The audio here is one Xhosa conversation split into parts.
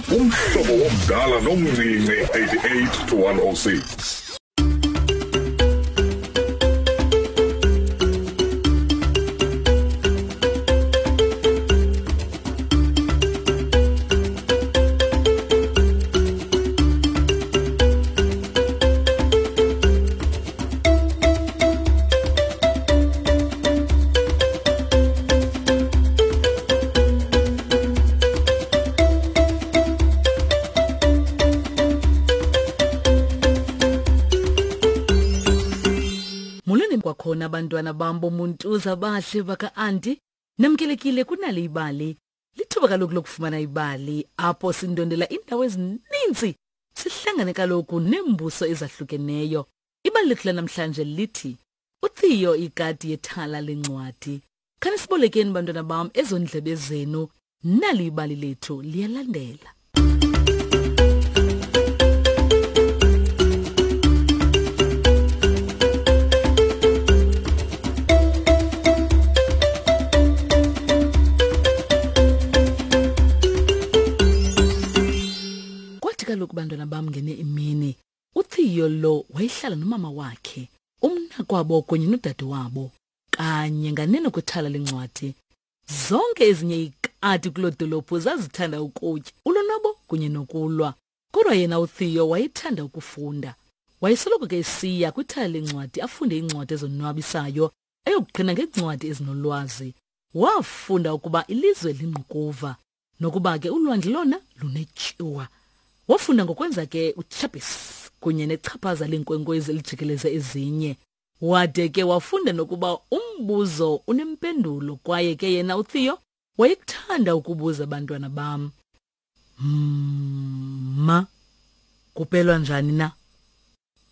Umhlobo womdala nomncinci 88 to 106. Molweni kwakhona abantwana bam bomuntuza bahle baka-anti. Namkelekile kunale ibali. Lithuba kaloku lokufumana ibali apho sindondela iindawo ezininzi sihlangane kaloku neembuso ezahlukeneyo. Ibali lethu lanamhlanje lithi uTheo ikati yethala lencwadi. Khanisibolekeni bantwana bam ezo ndlebe zenu, nali ibali lethu liyalandela. Kwathi kaloku bantwana bam ngene imini uTheo lo wayehlala nomama wakhe, umnakwabo kunye nodade wabo kanye nganeno kwithala lencwadi. Zonke ezinye iikati kuloo dolophu zazithanda ukutya, ulonwabo kunye nokulwa. Kodwa yena uTheo wayethanda ukufunda. Wayesoloko ke esiya kwithala lencwadi afunde iincwadi ezonwabisayo ayokuqhina ngeencwadi ezinolwazi. Wafunda ukuba ilizwe lingqukuva nokuba ke ulwandle lona lunetyuwa. Wafunda ngokwenza ke uChapis kunye nechaphaza leenkwenkwezi elijikeleze ezinye. Wade ke wafunda nokuba umbuzo unempendulo kwaye ke yena uTheo wayekuthanda ukubuza abantwana bam. Ma, kupelwa njani na?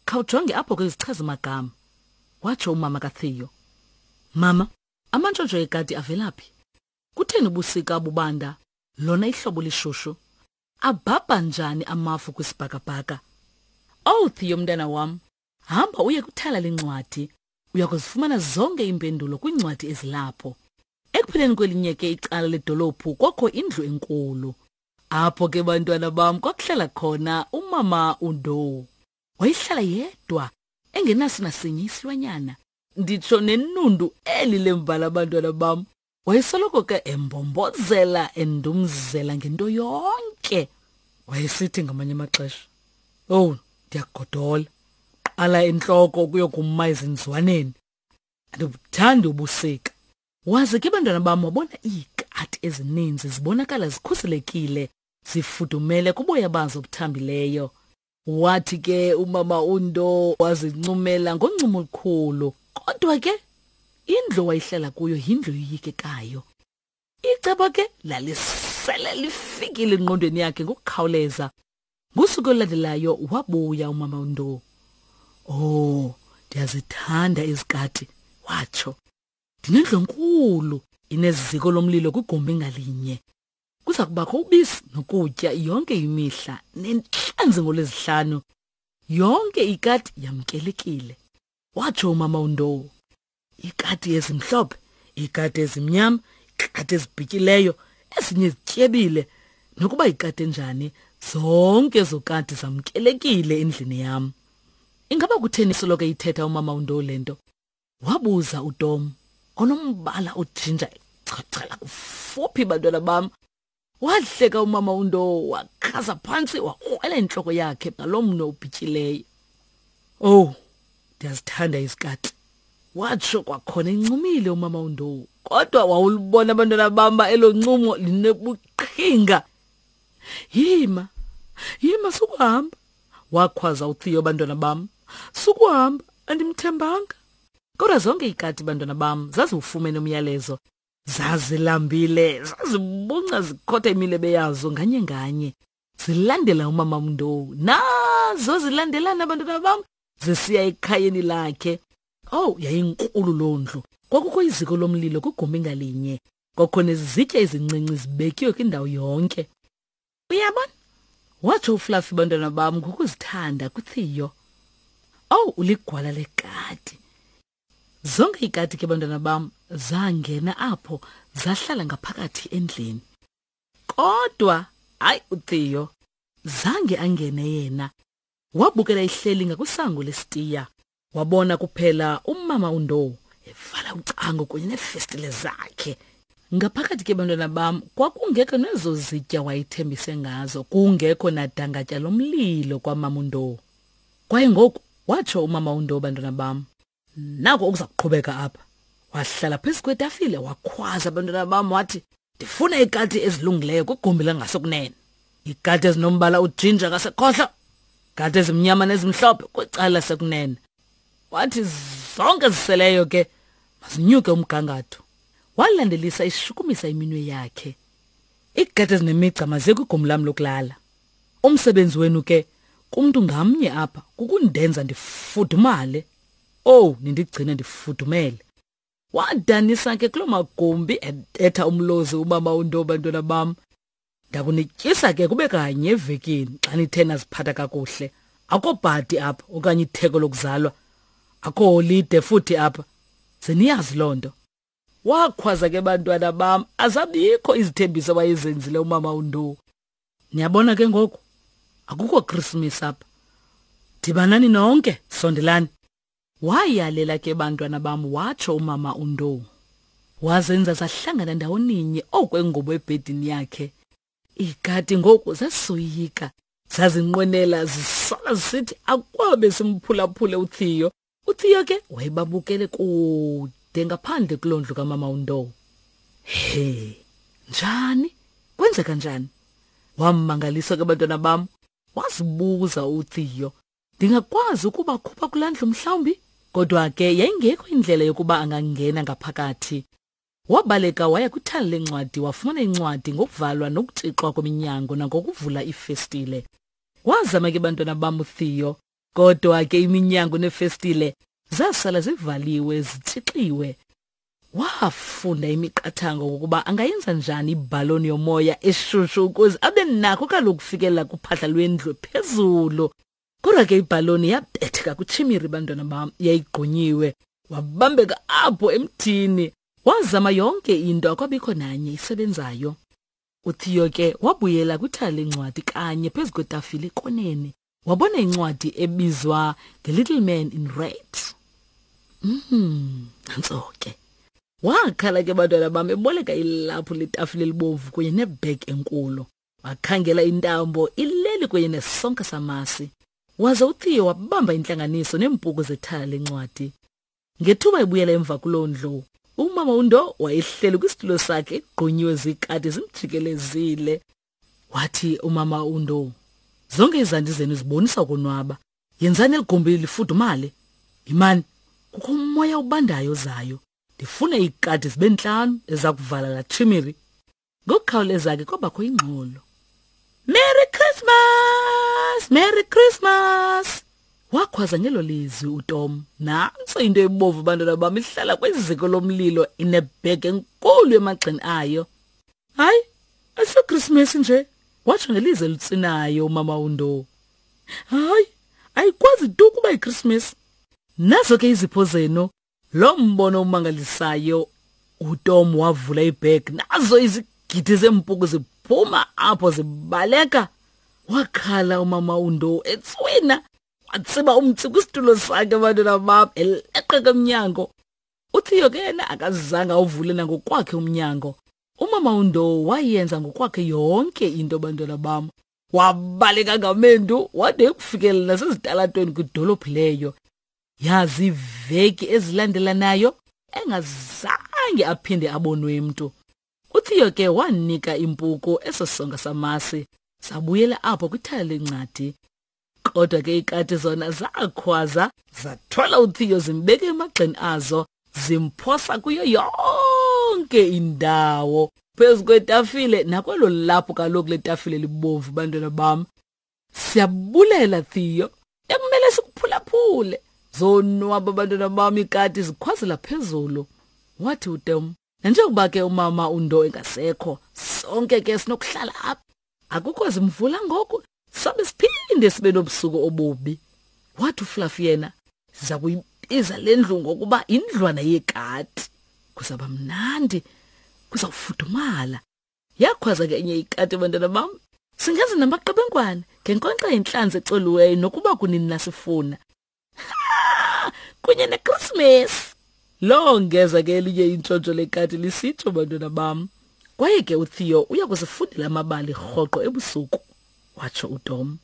Khawujonge apho kwizichazi-magama, watsho umama kaTheo. Mama, amantshontsho ekati avela phi? Kutheni ubusika bubanda, lona ihlobo lishushu? Abhabha njani amafu kwisibhakabhaka? Owu, Theo mntana wam, hamba uye kwithala lencwadi. Uya kuzifumana zonke iimpendulo kwiincwadi ezilapho. Ekupheleni kwelinye ke icala ledolophu kwakho indlu enkulu. Apho ke bantwana bam kwakuhlala khona umama uNdou. Wayehlala yedwa engenaso nasinye isilwanyana. Nditsho nenundu eli lembala abantwana bam. Wayesoloko ke embombozela endumzela ngento yonke. Wayesithi ngamanye amaxesha, "Owu, ndiyagodola. Qala entloko ukuyokuma ezinzwaneni. Andibuthandi ubusika." Waze ke bantwana bam wabona iikati ezininzi zibonakala zikhuselekile, zifudumele kuboya bazo obuthambileyo. Wathi ke umama uNdo wazincumela ngoncumo olukhulu. Kodwa ke indlu wayihlala kuyo yindlu yoyikekayo. Icebo ke lalisele lifikile engqondweni yakhe ngokukhawuleza. Ngosuku olulandelayo wabuya umama uNdo. Oh, ndiyazithanda izikati, watsho. Ndinendlu enkulu, ineziko lomlilo kwigumbi ngalinye. Kuza kubakho ubisi nokutya yonke imihla nentlanzi ngolwezihlanu. Yonke ikati yamkelekile, watsho umama uNdowo. Ikati ezimhlophe, ikati ezimnyama, ikati ezibhityileyo, ezinye zityebile. Nokuba ikati enjani, zonke ezo kati zamkelekile endlini yam. Ingaba kutheni soloko ithetha umama uNdowo le nto? Wabuza uTom onombala ojinja echachela kufuphi bantwana bam. Wahleka umama uNdowo wakhasa phantsi wakrwela intloko yakhe ngaloo mnwe ubhityileyo. Owu, ndiyazithanda izikati, watsho kwakhona encumile umama uNdowo. Kodwa wawulibona abantwana bam elo ncumo linebuqhinga. Yima, yima sukuhamba, wakhwaza uTheo bantwana bam. Sukuhamba, andimthembanga. Kodwa zonke iikati bantwana bam zaziwufumene umyalezo. Zazilambile, zazibunca zikhotha imilebe yazo nganye nganye. Zilandela umama Mndowu. Nazo zilandelana abantwana bam zisiya ekhayeni lakhe. Oh, yayinkulu loo ndlu. Kwakukho iziko lomlilo kwigumbi ngalinye. Kwakho nezizitya ezincinci zibekiwe kwindawo yonke. Uyabona? Watsho uFluffy bantwana bam ngokuzithanda kuTheo. Owu, uligwala lekati. Zonke iikati ke bantwana bam zangena apho zahlala ngaphakathi endlini. Kodwa Hayi uTheo zange angene yena. Wabukela ihleli ngakwisango lesitiya. Wabona kuphela umama uNdou evala ucango kunye neefestile zakhe. Ngaphakathi ke bantwana bam kwakungekho nezo zitya wayethembise ngazo, kungekho nadangatya lomlilo kwamama uNdou. Kwaye ngoku watsho umama uNdou bantwana bam, nako okuza kuqhubeka apha. Wahlala phezu kwetafile wakhwaza abantwana bam wathi, ndifuna iikati ezilungileyo kwigumbi langasekunene, iikati ezinombala ujinja ngasekhohlo, ikati ezimnyama nezimhlophe kwicala lasekunene. Wathi zonke ziseleyo ke mazinyuke umgangatho. Walandelisa ishukumisa iminwe yakhe. Iikati ezinemigca maziye kwigumbi lam lokulala. Umsebenzi wenu ke kumntu ngamnye apha kukundenza ndifudumale. Owu, nindigcine ndifudumele. Wadanisa ke kuloo magumbi ebetha umlozi umama uNdo bantwana bam. Ndakunityisa ke kube kanye evekini xa nithe naziphatha kakuhle. Akho bhadi apha okanye itheko lokuzalwa. Akho holide futhi apha. Ze niyazi loo nto. Wakhwaza ke bantwana bam azabikho izithembiso wayezenzile umama uNdo. Niyabona ke ngoku akukho Christmas apha. Dibanani nonke, sondelani. Wayalela ke bantwana bam watsho umama uNdou. Wazenza zahlangana ndawoninye okwengubo ebhedini yakhe. Iikati ngoku zasoyika. Zazinqwenela zisola zisithi akwabe simphulaphule uTheo. UTheo ke wayebabukele kude ngaphandle kuloo ndlu kamama uNdou. He, njani? Kwenzeka njani? Wammangaliswa ke bantwana bam. Wazibuza uTheo. Ndingakwazi ukubakhupha kulaa ndlu mhlawumbi? Kodwa ke yayingekho indlela yokuba angangena ngaphakathi. Wabaleka waya kwithala lencwadi wafumana incwadi ngokuvalwa nokutshixwa kweminyango nangokuvula iifestile. Wazama ke bantwana bam uTheo, kodwa ke iminyango neefestile zasala zivaliwe zitshixiwe. Wafunda imiqathango ngokuba angayenza njani ibhaloni yomoya eshushu ukuze abe nako kaloku ukufikelela kuphahla lwendlu phezulu. Kodwa ke ibhaloni yabetheka kwitshimiri bantwana bam, yayigqunyiwe. Wabambeka apho emthini. Wazama yonke into akwabikho nanye isebenzayo. UTheo ke wabuyela kwithala lencwadi kanye phezu kwetafile ekoneni. Wabona incwadi ebizwa The Little Man in Red. Nantso ke. Wakhala ke bantwana bam eboleka ilaphu letafile elibomvu kunye nebhegi enkulu. Wakhangela intambo ileli kunye nesonka samasi. Waze uTheo wabamba intlanganiso neempuku zethala lencwadi. Ngethuba ebuyela emva kuloo ndlu, umama uNdo wayehleli kwisitulo sakhe egqunyiwe ziikati zimjikelezile. Wathi umama uNdo, zonke izandi zenu zibonisa ukonwaba. Yenzani eli gumbi lifudumale. Yimani, kukho umoya obandayo ozayo. Ndifuna iikati zibe ntlanu eza kuvala laa tshimiri. Ngokukhawuleza ke kwabakho ingxolo. Merry Christmas! Merry Christmas! Wakhwaza ngelo lizwi uTom. Nantso into ebomvu bantwana bam ihlala kwiziko lomlilo inebhegi enkulu emagxeni ayo. Hayi, asiyoKrismesi nje, watsho ngelizwi elitsinayo umama uNdo. Hayi, ayikwazi tu ukuba yiKrismesi. Nazo ke izipho zenu. Lo mbono umangalisayo, uTom wavula ibhegi, nazo izigidi zeempuku ziphuma apho zibaleka. Wakhala umama uNdo etswina, watsiba umtsi kwisitulo sakhe abantwana bam eleqeka emnyango. UTheo ke yena akazange awuvule nangokwakhe umnyango. Umama uNdo wayenza ngokwakhe yonke into bantwana bam. Wabaleka ngamendu wade ekufikelela nasezitalatweni kwidolophu leyo. Yazi iveki ezilandelanayo engazange aphinde abonwe mntu. UTheo ke wanika impuku eso sonka samasi sabuyela apho kwithala lencwadi. Kodwa ke ikati zona zakhwaza zathwala uTheo zimbeka emagxeni azo zimphosa kuyo yonke indawo phezu kwetafile nakwelo lapho kaloku letafile libomvu bantwana bam. Siyabulela Theo, ekumele sikuphulaphule. Zonwaba abantwana bam ikati zikhwazela phezulu. Wathi uTom, nanjengokuba ke umama uNdo engasekho, sonke ke sinokuhlala apha. Akukho zimvula ngoku, sobe siphinde sibe nobusuku obubi. Wathi uFluffy yena, siza kuyibiza le ndlu ngokuba indlwana yekati. Kuzaba mnandi, kuzawufudumala. Yakhwaza ke enye ikati bantwana bam. Singenza namaqebengwana ngenkonkxa yentlanzi ecoliweyo nokuba kunini nasifuna. Kunye neKrismesi. Longeza ke elinye intshontsho lekati lisitsho bantwana bam. Kwaye ke uTheo uya kusifundela amabali rhoqo ebusuku, watsho uTom.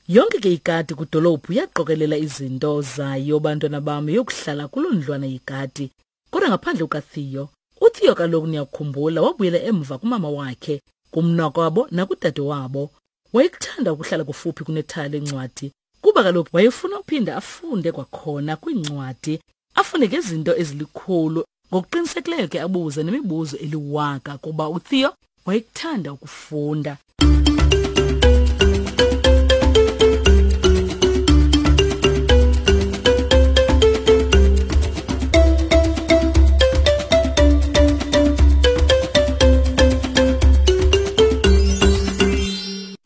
Yonke ke ikati kwidolophu yaqokelela izinto zayo bantwana bam yokuhlala kuloo ndlwana yekati. Kodwa ngaphandle kukaTheo, uTheo kaloku niyakukhumbula wabuyela emva kumama wakhe, kumnakwabo nakudade wabo. Wayekuthanda ukuhlala kufuphi kunethala lencwadi kuba kaloku wayefuna uphinda afunde kwakhona kwiincwadi, afunde ngezinto ezilikhulu. Ngokuqinisekileyo ke abuze nemibuzo eliwaka kuba uTheo wayekuthanda ukufunda.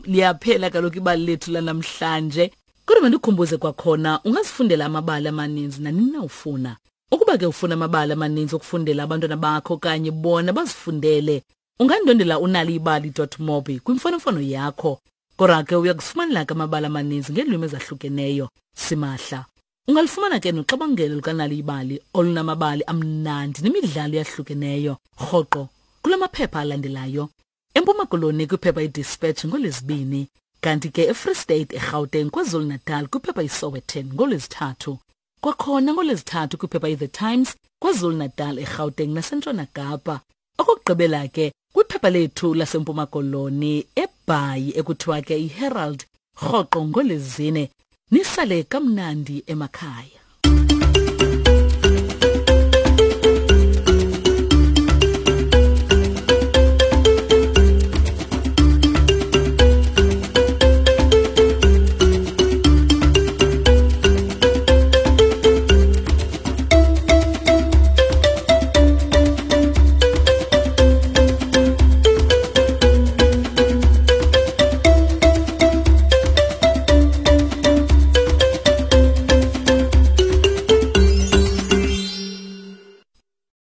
Liyaphela kaloku ibali lethu lanamhlanje. Kodwa mandikhumbuze kwakhona, ungazifundela amabali amaninzi nanini na ufuna. Ukuba ke ufuna amabali amaninzi okufundela abantwana bakho okanye bona bazifundele, ungandwendela unaliyibali.mobi kwimfonomfono yakho. Kodwa ke uya kufumanela ke amabali amaninzi ngeelwimi ezahlukeneyo simahla. Ungalufumana ke noxabangelo lukaNaliyibali olunamabali amnandi nemidlalo eyahlukeneyo rhoqo kula maphepha alandelayo. EMpuma Koloni kwiphepha iDispatch ngoLwezibini, kanti ke eFree State, eGauteng, KwaZulu-Natal kwiphepha iSowetan ngoLwezithathu. Kwakhona ngoLwezithathu kwiphepha iThe Times KwaZulu-Natal, eGauteng naseNtshona Kapa. Okokugqibela ke kwiphepha lethu laseMpuma Koloni eBhayi ekuthiwa ke iHerald rhoqo ngoLwezine. Nisale kamnandi emakhaya.